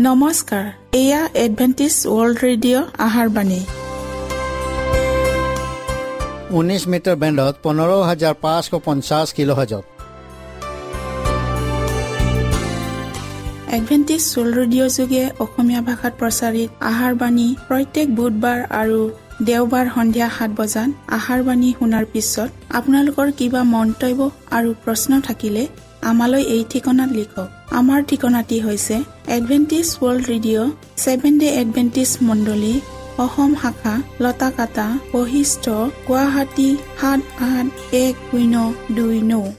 নমস্কাৰ, এয়া Adventist world radio' আহাৰ বাণী। 19 মিটাৰ বেণ্ডত 15550 কিলোহাৰ্জত। এডভেণ্টিষ্ট ৱৰ্ল্ড ৰেডিঅ' যোগে অসমীয়া ভাষাত প্ৰচাৰিত আহাৰ বাণী প্ৰত্যেক বুধবাৰ আৰু দেওবাৰ সন্ধিয়া 7 বজাত আহাৰ বাণী শুনাৰ পিছত আপোনালোকৰ কিবা মন্তব্য আৰু প্ৰশ্ন থাকিলে আমালৈ এই ঠিকনাত লিখক। আমাৰ ঠিকনাটি হৈছে Adventist world radio, seven day Adventist মণ্ডলী, অসম শাখা, লতাকাটা, বশিষ্ঠ, গুৱাহাটী 781029।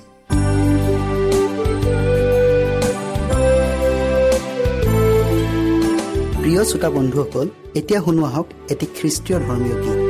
প্ৰিয় শ্ৰোতা বন্ধুসকল, এতিয়া শুনো আহক এটি খ্ৰীষ্টীয় ধৰ্মীয় গীত।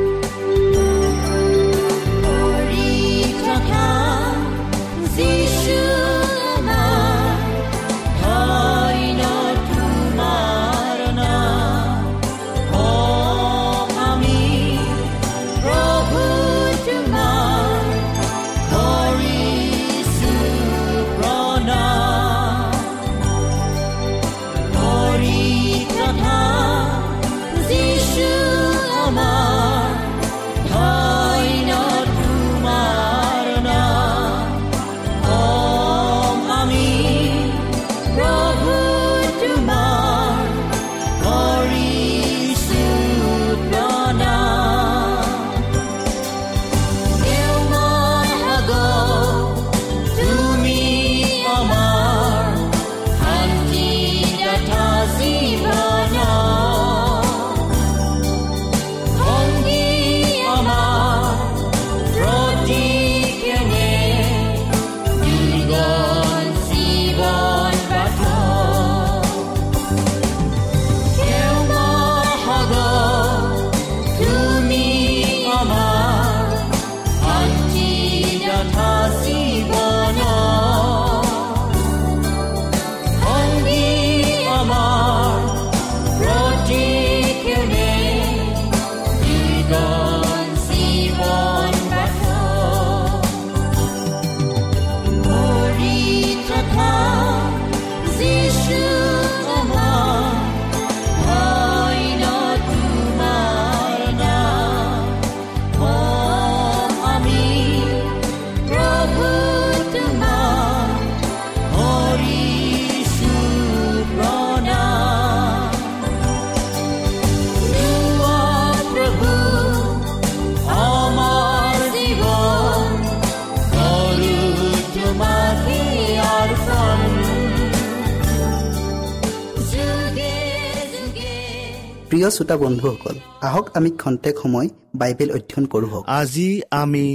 প্ৰিয় শ্ৰোতা বন্ধুসকল, আহক আমি খন্তেক সময় বাইবেল অধ্যয়ন কৰোঁ। আজি আমি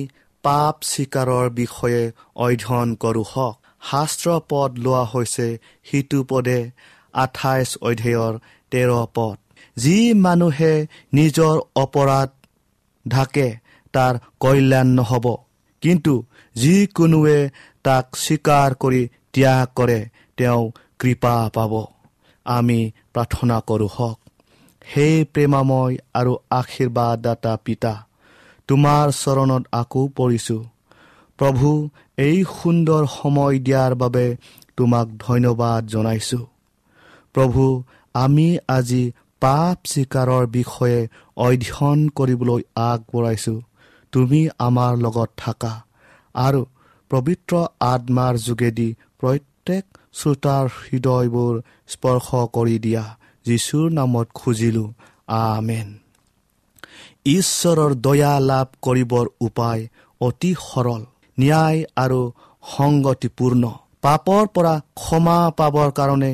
পাপ স্বীকাৰৰ বিষয়ে অধ্যয়ন কৰোঁ হওক। শাস্ত্ৰ পদ লোৱা হৈছে সিটো পদে 28 অধ্যায়ৰ 13 পদ। যি মানুহে নিজৰ অপৰাধ ঢাকে তাৰ কল্যাণ নহ'ব, কিন্তু যিকোনোৱে তাক স্বীকাৰ কৰি ত্যাগ কৰে তেওঁ কৃপা পাব। আমি প্ৰাৰ্থনা কৰোঁ হওক। হে প্ৰেমাময় আৰু আশীৰ্বাদদাতা পিতা, তোমাৰ চৰণত আকৌ পৰিছোঁ। প্ৰভু, এই সুন্দৰ সময় দিয়াৰ বাবে তোমাক ধন্যবাদ জনাইছোঁ। প্ৰভু, আমি আজি পাপ স্বীকাৰৰ বিষয়ে অধ্যয়ন কৰিবলৈ আগবঢ়াইছোঁ। তুমি আমাৰ লগত থাকা আৰু পবিত্ৰ আত্মাৰ যোগেদি প্ৰত্যেক শ্ৰোতাৰ হৃদয়বোৰ স্পৰ্শ কৰি দিয়া। যীশুৰ নামত খুজিলোঁ, আমেন। ঈশ্বৰৰ দয়া লাভ কৰিবৰ উপায় অতি সৰল, ন্যায় আৰু সংগতিপূৰ্ণ। পাপৰ পৰা ক্ষমা পাবৰ কাৰণে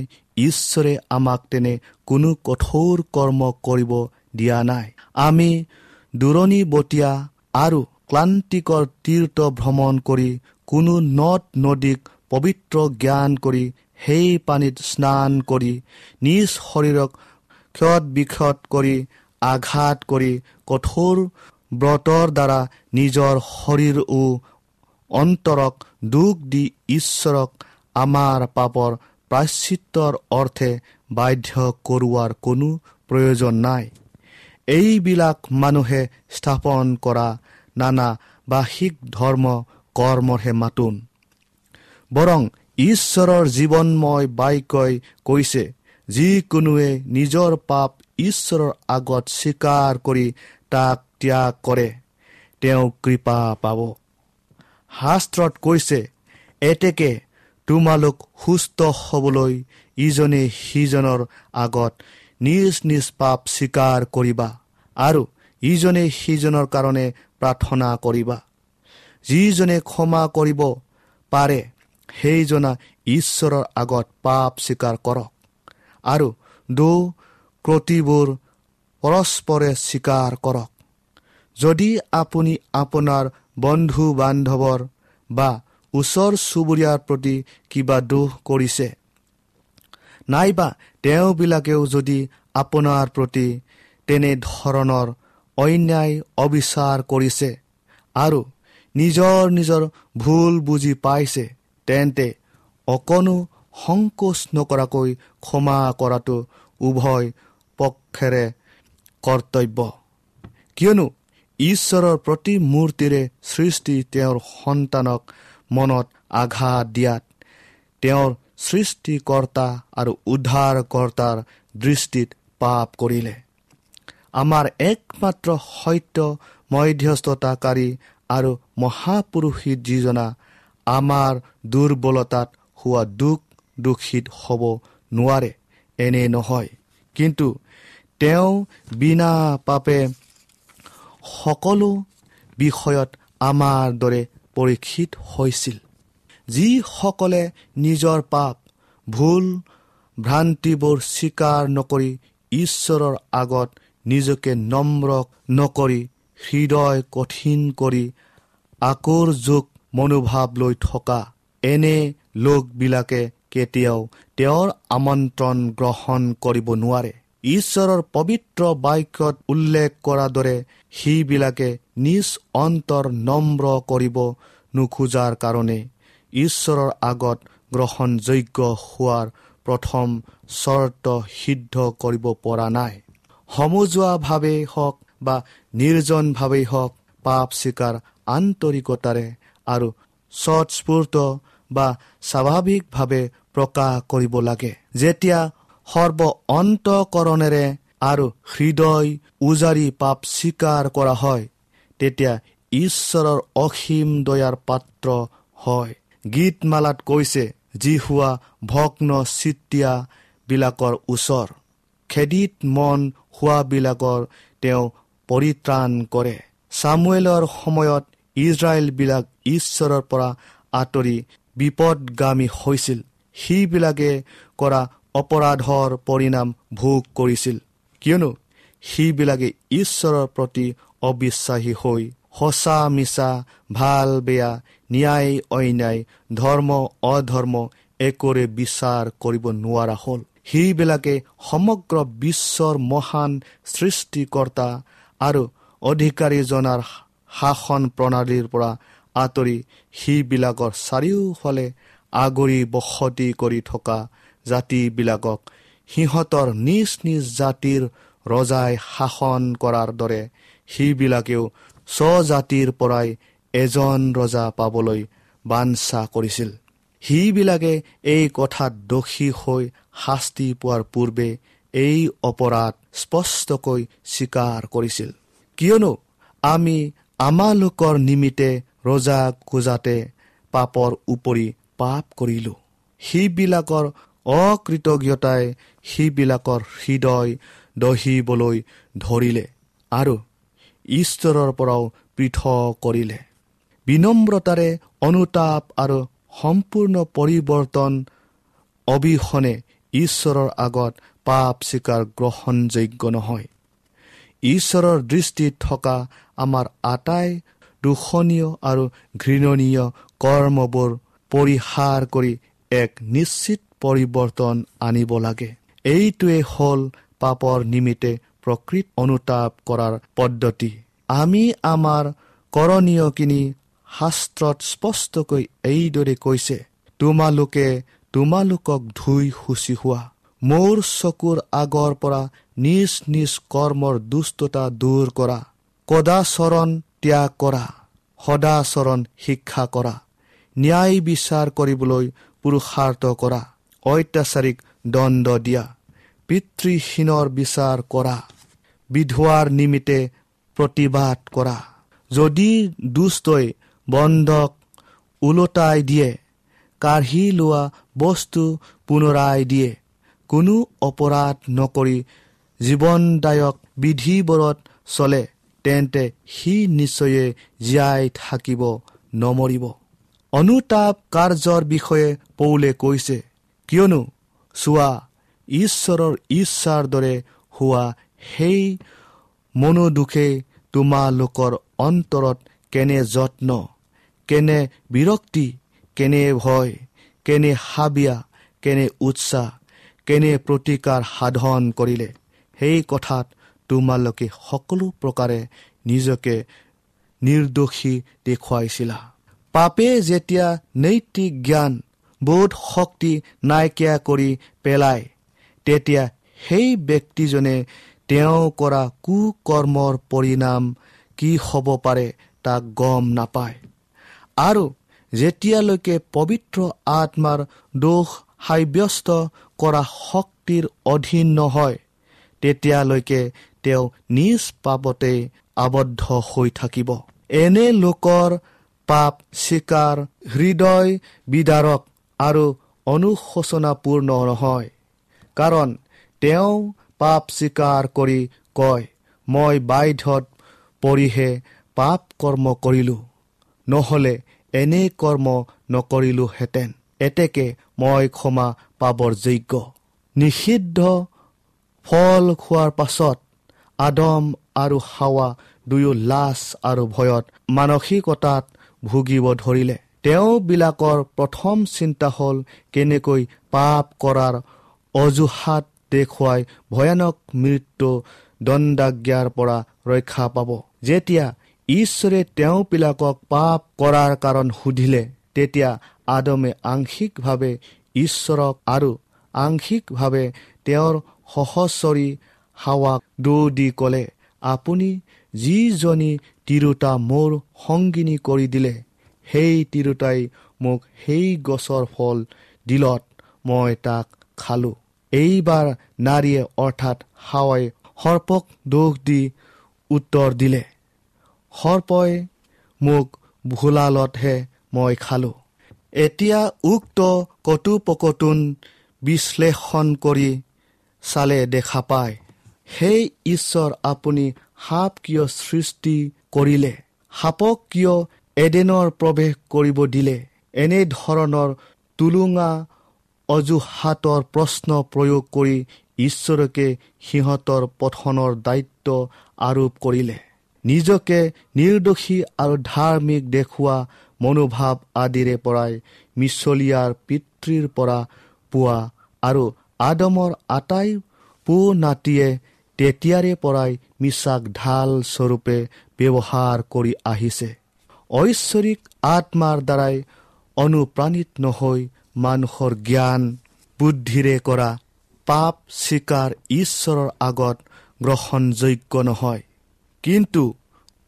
ঈশ্বৰে আমাক তেনে কোনো কঠোৰ কৰ্ম কৰিব দিয়া নাই। আমি দূৰণিবটীয়া আৰু ক্লান্তিকৰ তীৰ্থ ভ্ৰমণ কৰি কোনো নদ নদীক পবিত্ৰ জ্ঞান কৰি সেই পানীত স্নান কৰি নিজ শৰীৰক ক্ষত বিক্ষত কৰি আঘাত কৰি কঠোৰ ব্ৰতৰ দ্বাৰা নিজৰ শৰীৰ ও অন্তৰক দুখ দি ঈশ্বৰক আমাৰ পাপৰ প্ৰায়শ্চিত্তৰ অৰ্থে বাধ্য কৰোৱাৰ কোনো প্ৰয়োজন নাই। এইবিলাক মানুহে স্থাপন কৰা নানা বাহিক ধৰ্ম কৰ্মৰহে মাতোন। বৰং ঈশ্বৰৰ জীৱনময় বাক্যই কৈছে, যিকোনোৱে নিজৰ পাপ ঈশ্বৰৰ আগত স্বীকাৰ কৰি তাক ত্যাগ কৰে, তেওঁ কৃপা পাব। শাস্ত্ৰত কৈছে, এতেকে তোমালোক সুস্থ হ'বলৈ ইজনে সিজনৰ আগত নিজ নিজ পাপ স্বীকাৰ কৰিবা আৰু ইজনে সিজনৰ কাৰণে প্ৰাৰ্থনা কৰিবা। যিজনে ক্ষমা কৰিব পাৰে সেইজনা ঈশ্বৰৰ আগত পাপ স্বীকাৰ কৰক আৰু দোষ ক্ৰটিবোৰ পৰস্পৰে স্বীকাৰ কৰক। যদি আপুনি আপোনাৰ বন্ধু বান্ধৱৰ বা ওচৰ চুবুৰীয়াৰ প্ৰতি কিবা দোষ কৰিছে, নাইবা তেওঁবিলাকেও যদি আপোনাৰ প্ৰতি তেনেধৰণৰ অন্যায় অবিচাৰ কৰিছে আৰু নিজৰ নিজৰ ভুল বুজি পাইছে, তেন্তে অকণো সংকোচ নকৰাকৈ ক্ষমা কৰাটো উভয় পক্ষেৰে কৰ্তব্য। কিয়নো ঈশ্বৰৰ প্ৰতিমূৰ্তিৰে সৃষ্টি তেওঁৰ সন্তানক মনত আঘাত দিয়াত তেওঁৰ সৃষ্টিকৰ্তা আৰু উদ্ধাৰকৰ্তাৰ দৃষ্টিত পাপ কৰিলে। আমাৰ একমাত্ৰ সত্য মধ্যস্থতাকাৰী আৰু মহাপুৰুষিত যিজনা আমাৰ দুৰ্বলতাত হোৱা দুখ দুখিত হ'ব নোৱাৰে এনে নহয়, কিন্তু তেওঁ বিনা পাপে সকলো বিষয়ত আমাৰ দৰে পৰীক্ষিত হৈছিল। যিসকলে নিজৰ পাপ ভুল ভ্ৰান্তিবোৰ স্বীকাৰ নকৰি ঈশ্বৰৰ আগত নিজকে নম্ৰ নকৰি হৃদয় কঠিন কৰি আকুৰযোগ মনোভাৱ লৈ থকা এনে লোকবিলাকে কেতিয়াও তেওঁৰ আমন্ত্ৰণ গ্ৰহণ কৰিব নোৱাৰে। ঈশ্বৰৰ পবিত্ৰ বাক্যত উল্লেখ কৰাৰ দৰে সিবিলাকে নিজ অন্তৰ নম্ৰ কৰিব নোখোজাৰ কাৰণে ঈশ্বৰৰ আগত গ্ৰহণযোগ্য হোৱাৰ প্ৰথম চৰ্ত সিদ্ধ কৰিব পৰা নাই। সমজুৱাভাৱেই হওক বা নিৰ্জনভাৱেই হওক, পাপ স্বীকাৰ আন্তৰিকতাৰে আৰু স্বতঃস্ফূৰ্ত বা স্বাভাৱিকভাৱে প্ৰকাশ কৰিব লাগে। যেতিয়া সৰ্ব অন্তঃকৰণেৰে আৰু হৃদয় উজাৰি পাপ স্বীকাৰ কৰা হয়, তেতিয়া ঈশ্বৰৰ অসীম দয়াৰ পাত্ৰ হয়। গীতমালাত কৈছে, যিহোৱা ভগ্ন চিত্তীয়াবিলাকৰ ওচৰ, খেদিত মন হোৱাবিলাকৰ তেওঁ পৰিত্ৰাণ কৰে। চামুৱেলৰ সময়ত ইজৰাইলবিলাক ঈশ্বৰৰ পৰা আঁতৰি বিপদগামী হৈছিল। সিবিলাকে কৰা অপৰাধৰ পৰিণাম ভোগ কৰিছিল, কিয়নো সিবিলাকে ঈশ্বৰৰ প্ৰতি অবিশ্বাসী হৈ সঁচা মিছা, ভাল বেয়া, ন্যায় অন্যায়, ধৰ্ম অধৰ্ম একোৰে বিচাৰ কৰিব নোৱাৰা হ'ল। সিবিলাকে সমগ্ৰ বিশ্বৰ মহান সৃষ্টিকৰ্তা আৰু অধিকাৰীজনাৰ শাসন প্ৰণালীৰ পৰা আঁতৰি সিবিলাকৰ চাৰিওফালে আগুৰি বসতি কৰি থকা জাতিবিলাকক সিহঁতৰ নিজ নিজ জাতিৰ ৰজাই শাসন কৰাৰ দৰে সিবিলাকেও স্বজাতিৰ পৰাই এজন ৰজা পাবলৈ বাঞ্ছা কৰিছিল। সিবিলাকে এই কথাত দোষী হৈ শাস্তি পোৱাৰ পূৰ্বে এই অপৰাধ স্পষ্টকৈ স্বীকাৰ কৰিছিল। কিয়নো আমি আমালোকৰ নিমিত্তে ৰজা খোজাতে পাপৰ উপৰি পাপ কৰিলোঁ। সিবিলাকৰ অকৃতজ্ঞতাই সিবিলাকৰ হৃদয় দহিবলৈ ধৰিলে আৰু ঈশ্বৰৰ পৰাও পৃথক কৰিলে। বিনম্ৰতাৰে অনুতাপ আৰু সম্পূৰ্ণ পৰিৱৰ্তন অবিহনে ঈশ্বৰৰ আগত পাপ স্বীকাৰ গ্ৰহণযোগ্য নহয়। ঈশ্বৰৰ দৃষ্টিত থকা আমাৰ আটাই দূষণীয় আৰু ঘৃণনীয় কৰ্মবোৰ পৰিহাৰ কৰি এক নিশ্চিত পৰিৱৰ্তন আনিব লাগে। এইটোৱে হ'ল পাপৰ নিমিত্তে প্ৰকৃত অনুতাপ কৰাৰ পদ্ধতি। আমি আমাৰ কৰণীয়খিনি শাস্ত্ৰত স্পষ্টকৈ এইদৰে কৈছে, তোমালোকে তোমালোকক ধুই শুচি হোৱা, মোৰ চকুৰ আগৰ পৰা নিজ নিজ কৰ্মৰ দুষ্টতা দূৰ কৰা, কদাচৰণ ত্যাগ কৰা, সদাচৰণ শিক্ষা কৰা, ন্যায় বিচাৰ কৰিবলৈ পুৰুষাৰ্থ কৰা, অত্যাচাৰীক দণ্ড দিয়া, পিতৃহীনৰ বিচাৰ কৰা, বিধৱাৰ নিমিত্তে প্ৰতিবাদ কৰা। যদি দুষ্টই বন্ধক ওলোটাই দিয়ে, কাঢ়ি লোৱা বস্তু পুনৰাই দিয়ে, কোনো অপৰাধ নকৰি জীৱনদায়ক বিধিবোৰত চলে, তেন্তে সি নিশ্চয়ে জীয়াই থাকিব, নমৰিব। অনুতাপ কাৰ্যৰ বিষয়ে পৌলে কৈছে, কিয়নো চোৱা, ঈশ্বৰৰ ইচ্ছাৰ দৰে হোৱা সেই মনোদুখে তোমালোকৰ অন্তৰত কেনে যত্ন, কেনে বিৰক্তি, কেনে ভয়, কেনে হাবিয়া, কেনে উৎসাহ, কেনে প্ৰতিকাৰ সাধন কৰিলে, সেই কথাত তোমালোকে সকলো প্ৰকাৰে নিজকে নিৰ্দোষী দেখুৱাইছিলা। পাপে যেতিয়া নৈতিক জ্ঞান বোধ শক্তি নাইকিয়া কৰি পেলায়, তেতিয়া সেই ব্যক্তিজনে তেওঁ কৰা কুকৰ্মৰ পৰিণাম কি হ'ব পাৰে তাক গম নাপায়। আৰু যেতিয়ালৈকে পবিত্ৰ আত্মাৰ দোষ সাব্যস্ত কৰা শক্তিৰ অধীন নহয়, তেতিয়ালৈকে তেওঁ নিজ পাপতে আবদ্ধ হৈ থাকিব। এনে লোকৰ পাপ স্বীকাৰ হৃদয় বিদাৰক আৰু অনুশোচনাপূৰ্ণ নহয়, কাৰণ তেওঁ পাপ স্বীকাৰ কৰি কয়, মই বাধ্যত পৰিহে পাপ কৰ্ম কৰিলোঁ, নহ'লে এনে কৰ্ম নকৰিলোহেঁতেন, এতেকে মই ক্ষমা পাবৰ যোগ্য। নিষিদ্ধ ফল খোৱাৰ পাছত আদম আৰু হাৱা দুয়ো লাজ আৰু ভয়ত মানসিকতাত ভুগিব ধৰিলে। তেওঁবিলাকৰ প্ৰথম চিন্তা হ'ল কেনেকৈ পাপ কৰাৰ অজুহাত দেখুৱাই ভয়ানক মৃত্যু দণ্ডাজ্ঞাৰ পৰা ৰক্ষা পাব। যেতিয়া ঈশ্বৰে তেওঁবিলাকক পাপ কৰাৰ কাৰণ সুধিলে, তেতিয়া আদমে আংশিকভাৱে ঈশ্বৰক আৰু আংশিকভাৱে তেওঁৰ সহচৰী হাৱাক দোষ দি ক'লে, আপুনি যিজনী তিৰোতা মোৰ সংগিনী কৰি দিলে, সেই তিৰোতাই মোক সেই গছৰ ফল দিলত মই তাক খালোঁ। এইবাৰ নাৰীয়ে অৰ্থাৎ হাৱাই সৰ্পক দোষ দি উত্তৰ দিলে, সৰ্পই মোক ভোলালতহে মই খালোঁ। এতিয়া উক্ত কথোপকথন বিশ্লেষণ কৰি চালে দেখা পায়, সেই ঈশ্বৰ আপুনি সাপ কিয় সৃষ্টি কৰিলে, সাপক কিয় এডেনৰ প্ৰৱেশ কৰিব দিলে? এনেধৰণৰ টুলুঙা অজুহাতৰ প্ৰশ্ন প্ৰয়োগ কৰি ঈশ্বৰকে সিহঁতৰ পঠনৰ দায়িত্ব আৰোপ কৰিলে। নিজকে নিৰ্দোষী আৰু ধাৰ্মিক দেখুওৱা মনোভাৱ আদিৰে পৰাই মিছলীয়াৰ পিতৃৰ পৰা পোৱা আৰু আদমৰ আটাই পো নাতিয়ে তেতিয়াৰে পৰাই মিছাক ঢাল স্বৰূপে ব্যৱহাৰ কৰি আহিছে। ঐশ্বৰিক আত্মাৰ দ্বাৰাই অনুপ্ৰাণিত নহৈ মানুহৰ জ্ঞান বুদ্ধিৰে কৰা পাপ স্বীকাৰ ঈশ্বৰৰ আগত গ্ৰহণযোগ্য নহয়, কিন্তু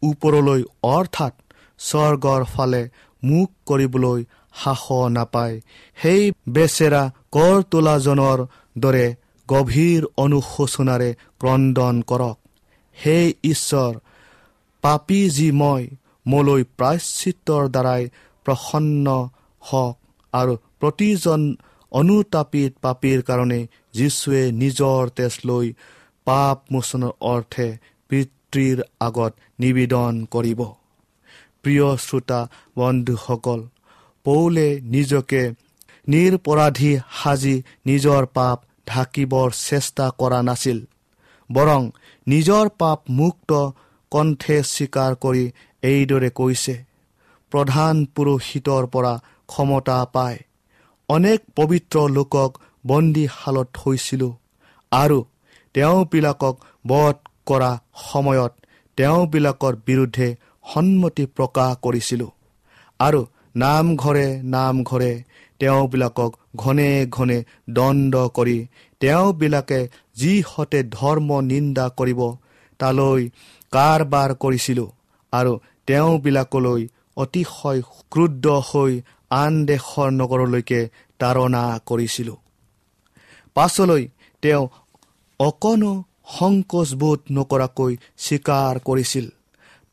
ওপৰলৈ অৰ্থাৎ স্বৰ্গৰ ফালে মুখ কৰিবলৈ সাহস নাপায় সেই বেচেৰা কৰ তোলাজনৰ দৰে গভীৰ অনুশোচনাৰে ক্ৰদন কৰক। হে ঈশ্বৰ, পাপী যি মই, মোলৈ প্ৰায়শ্চিত্তৰ দ্বাৰাই প্ৰসন্ন হওক আৰু প্ৰতিজন অনুতাপিত পাপীৰ কাৰণে যীশুৱে নিজৰ তেজ লৈ পাপ মোচনৰ অৰ্থে পিতৃৰ আগত নিবেদন কৰিব। প্ৰিয় শ্ৰোতা বন্ধুসকল, পৌলে নিজকে নিৰপৰাধী সাজি নিজৰ পাপ ঢাকিবৰ চেষ্টা কৰা নাছিল, বৰং নিজৰ পাপ মুক্ত কণ্ঠে স্বীকাৰ কৰি এইদৰে কৈছে, প্ৰধান পুৰোহিতৰ পৰা ক্ষমতা পাই অনেক পবিত্ৰ লোকক বন্দীশালত থৈছিলোঁ আৰু তেওঁবিলাকক বধ কৰা সময়ত তেওঁবিলাকৰ বিৰুদ্ধে সন্মতি প্ৰকাশ কৰিছিলোঁ আৰু নামঘৰে নামঘৰে তেওঁবিলাকক ঘনে ঘনে দণ্ড কৰি তেওঁবিলাকে যিহঁতে ধৰ্ম নিন্দা কৰিব তালৈ কাৰবাৰ কৰিছিলোঁ আৰু তেওঁবিলাকলৈ অতিশয় ক্ৰুদ্ধ হৈ আন দেশৰ নগৰলৈকে তাৰণা কৰিছিলোঁ। পাছলৈ তেওঁ অকণো সংকোচবোধ নকৰাকৈ স্বীকাৰ কৰিছিল।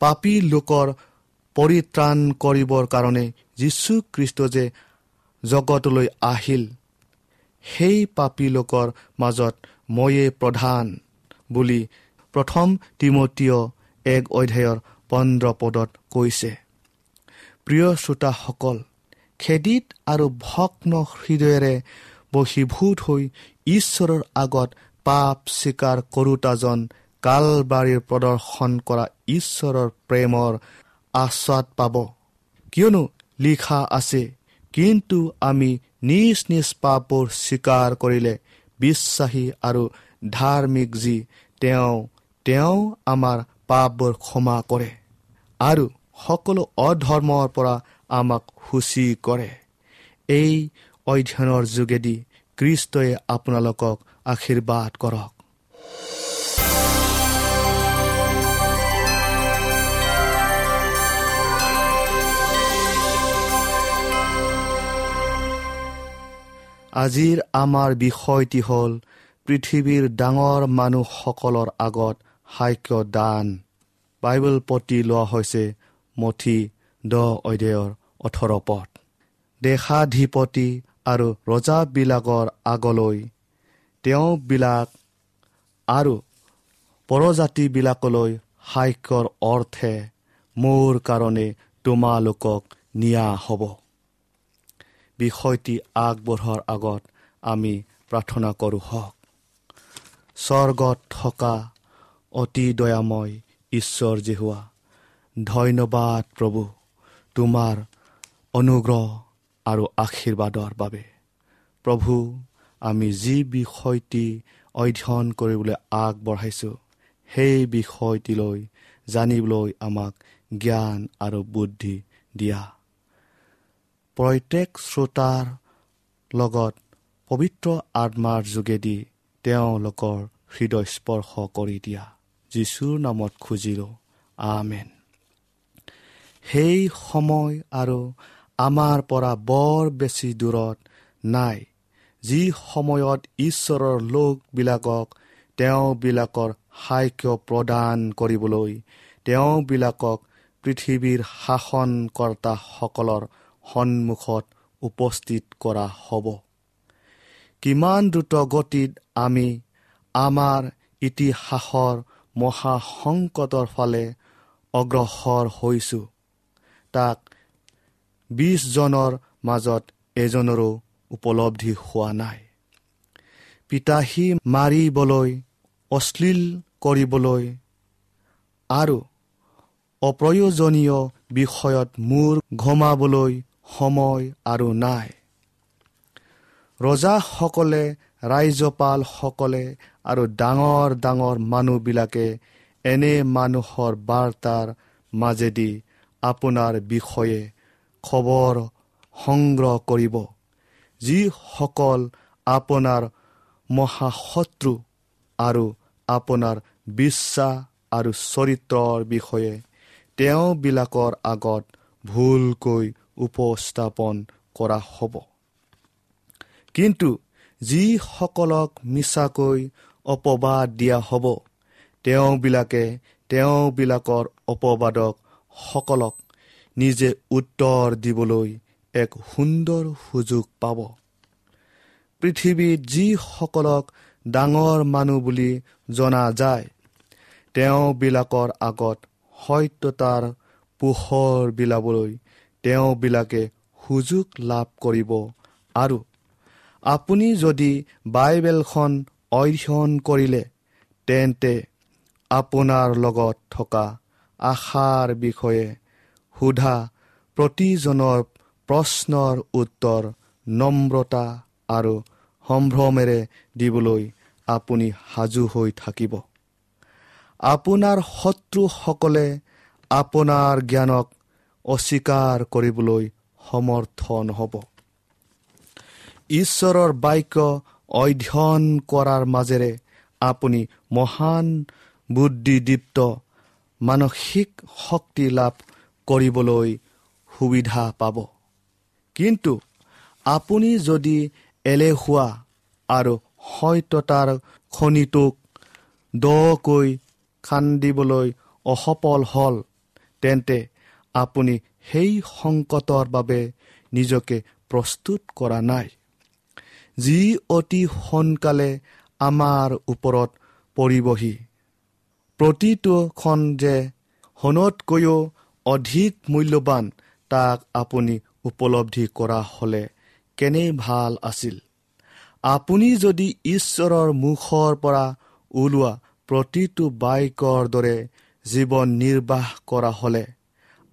পাপী লোকৰ পৰিত্ৰাণ কৰিবৰ কাৰণে যীশুখ্ৰীষ্ট যে জগতলৈ আহিল, সেই পাপী লোকৰ মাজত ময়ে প্ৰধান বুলি প্ৰথম তীমথিয় 1 অধ্যায়ৰ 15 পদত কৈছে। প্ৰিয় শ্ৰোতাসকল, খেদিত আৰু ভগ্ন হৃদয়েৰে বশীভূত হৈ ঈশ্বৰৰ আগত পাপ স্বীকাৰ কৰোতাজন কালবাৰীৰ প্ৰদৰ্শন কৰা ঈশ্বৰৰ প্ৰেমৰ আস্বাদ পাব। কিয়নো লিখা আছে, কিন্তু আমি নিজ নিজ পাপবোৰ স্বীকাৰ কৰিলে বিশ্বাসী আৰু ধাৰ্মিক যি তেওঁ আমাৰ পাপবোৰ ক্ষমা কৰে আৰু সকলো অধৰ্মৰ পৰা আমাক সূচী কৰে। এই অধ্যয়নৰ যোগেদি খ্ৰীষ্টই আপোনালোকক আশীৰ্বাদ কৰক। আজিৰ আমাৰ বিষয়টি হ'ল পৃথিৱীৰ ডাঙৰ মানুহসকলৰ আগত সাক্ষ্য দান। বাইবেল পতি লোৱা হৈছে মথি 10 অধ্যায়ৰ 18 পদ। দেশাধিপতি আৰু ৰজাবিলাকৰ আগলৈ তেওঁবিলাক আৰু পৰজাতিবিলাকলৈ সাক্ষ্যৰ অৰ্থে মোৰ কাৰণে তোমালোকক নিয়া হ'ব। বিষয়টি আগবঢ়োৱাৰ আগত আমি প্ৰাৰ্থনা কৰোঁ হওক। স্বৰ্গত থকা অতি দয়াময় ঈশ্বৰ যিহোৱা, ধন্যবাদ প্ৰভু তোমাৰ অনুগ্ৰহ আৰু আশীৰ্বাদৰ বাবে। প্ৰভু, আমি যি বিষয়টি অধ্যয়ন কৰিবলৈ আগবঢ়াইছোঁ সেই বিষয়টিলৈ জানিবলৈ আমাক জ্ঞান আৰু বুদ্ধি দিয়া। প্ৰত্যেক শ্ৰোতাৰ লগত পবিত্ৰ আত্মাৰ যোগেদি তেওঁলোকৰ হৃদয় স্পৰ্শ কৰি দিয়া। যীশুৰ নামত খুজিলোঁ, আমেন। সেই সময় আৰু আমাৰ পৰা বৰ বেছি দূৰত নাই, যি সময়ত ঈশ্বৰৰ লোকবিলাকক তেওঁবিলাকৰ সাক্ষ্য প্ৰদান কৰিবলৈ তেওঁবিলাকক পৃথিৱীৰ শাসনকৰ্তাসকলৰ সন্মুখত উপস্থিত কৰা হ'ব। কিমান দ্ৰুত গতিত আমি আমাৰ ইতিহাসৰ মহাসংকটৰ ফালে অগ্ৰসৰ হৈছোঁ, তাক 20 জনৰ মাজত এজনৰো উপলব্ধি হোৱা নাই। পিতাহী মাৰিবলৈ, অশ্লীল কৰিবলৈ আৰু অপ্ৰয়োজনীয় বিষয়ত মূৰ ঘমাবলৈ সময় আৰু নাই। ৰজাসকলে, ৰাজ্যপালসকলে আৰু ডাঙৰ ডাঙৰ মানুহবিলাকে এনে মানুহৰ বাৰ্তাৰ মাজেদি আপোনাৰ বিষয়ে খবৰ সংগ্ৰহ কৰিব, যিসকল আপোনাৰ মহাশত্ৰু আৰু আপোনাৰ বিশ্বাস আৰু চৰিত্ৰৰ বিষয়ে তেওঁবিলাকৰ আগত ভুলকৈ উপস্থাপন কৰা হ'ব। কিন্তু যিসকলক মিছাকৈ অপবাদ দিয়া হ'ব, তেওঁবিলাকে তেওঁবিলাকৰ অপবাদকসকলক নিজে উত্তৰ দিবলৈ এক সুন্দৰ সুযোগ পাব। পৃথিৱীত যিসকলক ডাঙৰ মানুহ বুলি জনা যায়, তেওঁবিলাকৰ আগত সত্যতাৰ পোহৰ বিলাবলৈ তেওঁবিলাকে সুযোগ লাভ কৰিব। আৰু আপুনি যদি বাইবেলখন অধ্যয়ন কৰিলে, তেন্তে আপোনাৰ লগত থকা আশাৰ বিষয়ে সোধা প্ৰতিজনৰ প্ৰশ্নৰ উত্তৰ নম্ৰতা আৰু সম্ভ্ৰমেৰে দিবলৈ আপুনি সাজু হৈ থাকিব। আপোনাৰ শত্ৰুসকলে আপোনাৰ জ্ঞানক অস্বীকাৰ কৰিবলৈ সমৰ্থ নহ'ব। ঈশ্বৰৰ বাক্য অধ্যয়ন কৰাৰ মাজেৰে আপুনি মহান বুদ্ধিদীপ্ত মানসিক শক্তি লাভ কৰিবলৈ সুবিধা পাব। কিন্তু আপুনি যদি এলেহুৱা আৰু সত্যতাৰ খনিটোক দকৈ খান্দিবলৈ অসফল হ'ল, তেন্তে আপুনি সেই সংকটৰ বাবে নিজকে প্ৰস্তুত কৰা নাই, যি অতি সোনকালে আমাৰ ওপৰত পৰিবহি। প্ৰতিটোখন যে সোণতকৈও অধিক মূল্যৱান তাক আপুনি উপলব্ধি কৰা হ'লে কেনে ভাল আছিল। আপুনি যদি ঈশ্বৰৰ মুখৰ পৰা ওলোৱা প্ৰতিটো বাক্যৰ দৰে জীৱন নিৰ্বাহ কৰা হ'লে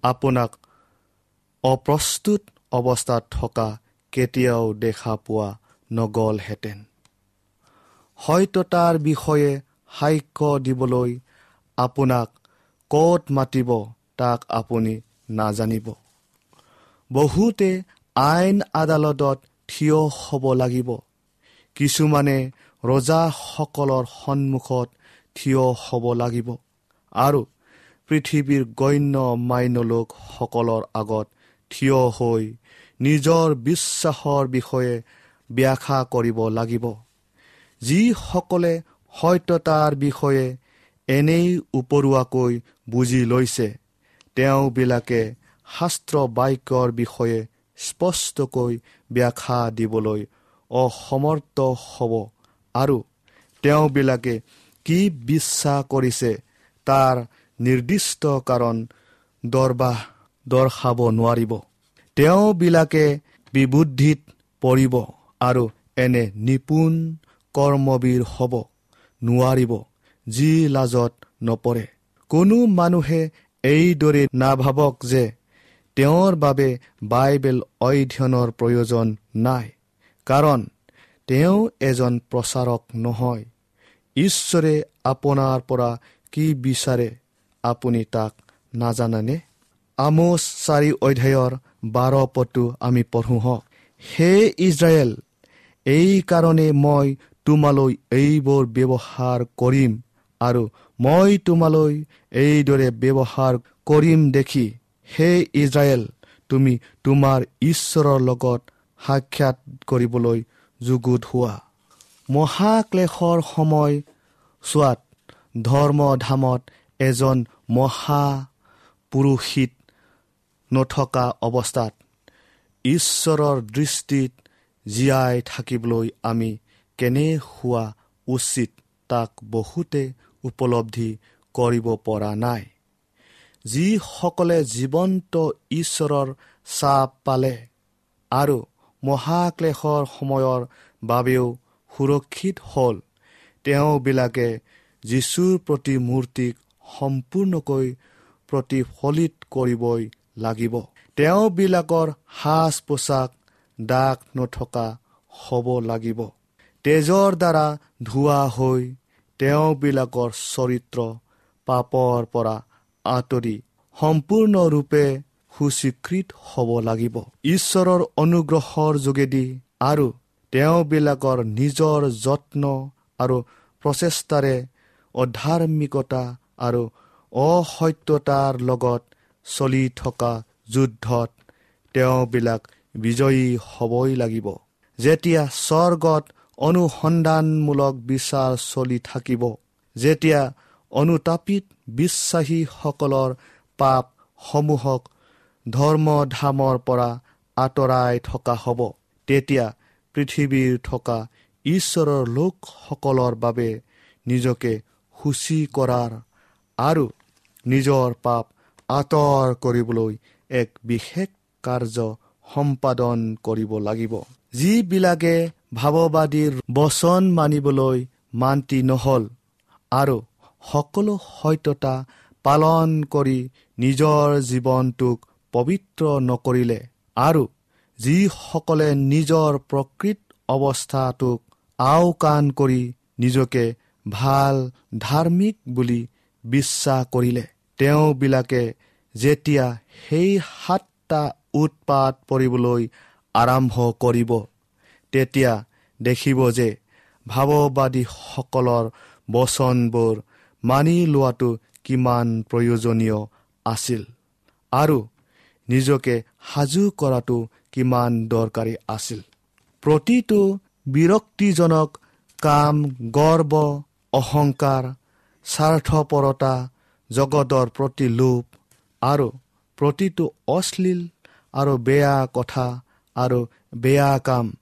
আপোনাক অপ্ৰস্তুত অৱস্থাত থকা কেতিয়াও দেখা পোৱা নগ'লহেঁতেন। হয়তো তাৰ বিষয়ে সাক্ষ্য দিবলৈ আপোনাক ক'ত মাতিব তাক আপুনি নাজানিব। বহুতে আইন আদালতত থিয় হ'ব লাগিব, কিছুমানে ৰজাসকলৰ সন্মুখত থিয় হ'ব লাগিব আৰু পৃথিৱীৰ গণ্য মান্য লোকসকলৰ আগত থিয় হৈ নিজৰ বিশ্বাসৰ বিষয়ে ব্যাখ্যা কৰিব লাগিব। যিসকলে সত্যতাৰ বিষয়ে এনেই উপৰুৱাকৈ বুজি লৈছে, তেওঁবিলাকে শাস্ত্ৰ বাক্যৰ বিষয়ে স্পষ্টকৈ ব্যাখ্যা দিবলৈ অসমৰ্থ হ'ব আৰু তেওঁবিলাকে কি বিশ্বাস কৰিছে তাৰ নিৰ্দিষ্ট কাৰণ দৰ্শাব নোৱাৰিব। তেওঁবিলাকে বিবুদ্ধিত পৰিব আৰু এনে নিপুণ কৰ্মবীৰ হ'ব নোৱাৰিব যি লাজত নপৰে। কোনো মানুহে এইদৰে নাভাবক যে তেওঁৰ বাবে বাইবেল অধ্যয়নৰ প্ৰয়োজন নাই, কাৰণ তেওঁ এজন প্ৰচাৰক নহয়। ঈশ্বৰে আপোনাৰ পৰা কি বিচাৰে আপুনি তাক নাজানেনে? আমোচ 4 অধ্যায়ৰ 12 পদটো আমি পঢ়োঁ হওক। হে ইস্ৰায়েল, এইকাৰণে মই তোমালৈ এইবোৰ ব্যৱহাৰ কৰিম আৰু মই তোমালৈ এইদৰে ব্যৱহাৰ কৰিম দেখি, হে ইস্ৰায়েল, তুমি তোমাৰ ঈশ্বৰৰ লগত সাক্ষাৎ কৰিবলৈ যুগুত হোৱা। মহাক্লেশৰ সময় চোৱাত ধৰ্মধামত এজন মহাপুৰোহিত নথকা অৱস্থাত ঈশ্বৰৰ দৃষ্টিত জীয়াই থাকিবলৈ আমি কেনে হোৱা উচিত তাক বহুতে উপলব্ধি কৰিব পৰা নাই। যিসকলে জীৱন্ত ঈশ্বৰৰ চাপ পালে আৰু মহাক্লেশৰ সময়ৰ বাবেও সুৰক্ষিত হ'ল, তেওঁবিলাকে যীশুৰ প্ৰতিমূৰ্তিক সম্পূৰ্ণকৈ প্ৰতিফলিত কৰিবই লাগিব। তেওঁবিলাকৰ সাজ পোছাক দাগ নথকা হ'ব লাগিব। তেজৰ দ্বাৰা ধোৱা হৈ তেওঁবিলাকৰ চৰিত্ৰ পাপৰ পৰা আঁতৰি সম্পূৰ্ণৰূপে সুস্বীকৃত হ'ব লাগিব। ঈশ্বৰৰ অনুগ্ৰহৰ যোগেদি আৰু তেওঁবিলাকৰ নিজৰ যত্ন আৰু প্ৰচেষ্টাৰে অধাৰ্মিকতা আৰু অসত্যতাৰ লগত চলি থকা যুদ্ধত তেওঁবিলাক বিজয়ী হ'বই লাগিব। যেতিয়া স্বৰ্গত অনুসন্ধানমূলক বিচাৰ চলি থাকিব, যেতিয়া অনুতাপিত বিশ্বাসীসকলৰ পাপসমূহক ধৰ্মধামৰ পৰা আঁতৰাই থকা হ'ব, তেতিয়া পৃথিৱীৰ থকা ঈশ্বৰৰ লোকসকলৰ বাবে নিজকে সূচী কৰাৰ আৰু নিজৰ পাপ আঁতৰ কৰিবলৈ এক বিশেষ কাৰ্য সম্পাদন কৰিব লাগিব। যিবিলাকে ভাৱবাদীৰ বচন মানিবলৈ মান্তি নহ'ল আৰু সকলো সত্যতা পালন কৰি নিজৰ জীৱনটোক পবিত্ৰ নকৰিলে আৰু যিসকলে নিজৰ প্ৰকৃত অৱস্থাটোক আওকাণ কৰি নিজকে ভাল ধাৰ্মিক বুলি বিশ্বাস কৰিলে, তেওঁবিলাকে যেতিয়া সেই 7টা উৎপাত পৰিবলৈ আৰম্ভ কৰিব, তেতিয়া দেখিব যে ভাৱবাদীসকলৰ বচনবোৰ মানি লোৱাটো কিমান প্ৰয়োজনীয় আছিল আৰু নিজকে সাজু কৰাটো কিমান দৰকাৰী আছিল। প্ৰতিটো বিৰক্তিজনক কাম, গৰ্ব, অহংকাৰ, স্বাৰ্থপৰতা, জগতৰ প্ৰতি লোভ আৰু প্ৰতিটো অশ্লীল আৰু বেয়া কথা আৰু বেয়া কাম,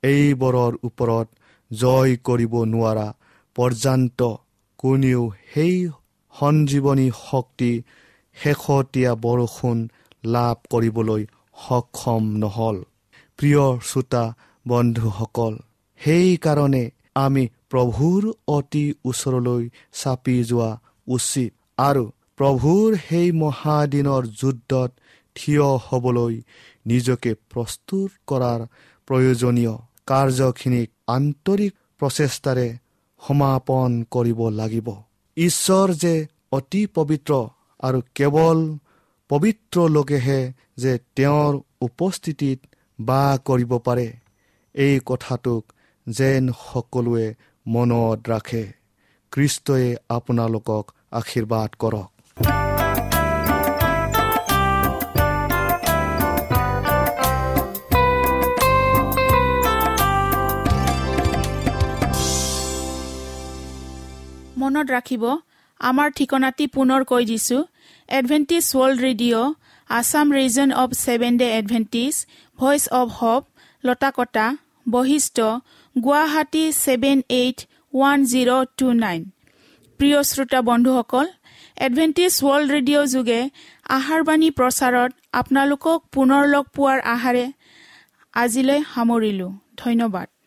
এইবোৰৰ ওপৰত জয় কৰিব নোৱাৰা পৰ্যন্ত কোনেও সেই সঞ্জীৱনী শক্তি, শেহতীয়া বৰষুণ লাভ কৰিবলৈ সক্ষম নহ'ল। প্ৰিয় শ্ৰোতা বন্ধুসকল, সেইকাৰণে আমি প্ৰভুৰ অতি ওচৰলৈ চাপি যোৱা উচিত আৰু প্ৰভুৰ সেই মহাদিনৰ যুদ্ধত থিয় হ'বলৈ নিজকে প্ৰস্তুত কৰাৰ প্ৰয়োজনীয় কাৰ্যখিনিক আন্তৰিক প্ৰচেষ্টাৰে সমাপন কৰিব লাগিব। ঈশ্বৰ যে অতি পবিত্ৰ আৰু কেৱল পবিত্ৰ লোকেহে যে তেওঁৰ উপস্থিতিত বাস কৰিব পাৰে, এই কথাটোক যেন সকলোৱে মনত ৰাখে। খ্ৰীষ্টই আপোনালোকক আশীৰ্বাদ কৰক। মনত ৰাখিব, আমাৰ ঠিকনাটি পুনৰ কৈ দিছোঁ। Adventist World Radio, Assam Region of Seven Day Adventist, Voice of Hope, Latakata, Basistha, Guwahati 781029। প্ৰিয় শ্ৰোতা বন্ধুসকল, এডভেণ্টিষ্ট ৱৰ্ল্ড ৰেডিঅ' যোগে আহাৰবাণী প্ৰচাৰত আপোনালোকক পুনৰ লগ পোৱাৰ আশাৰে আজিলৈ সামৰিলোঁ। ধন্যবাদ।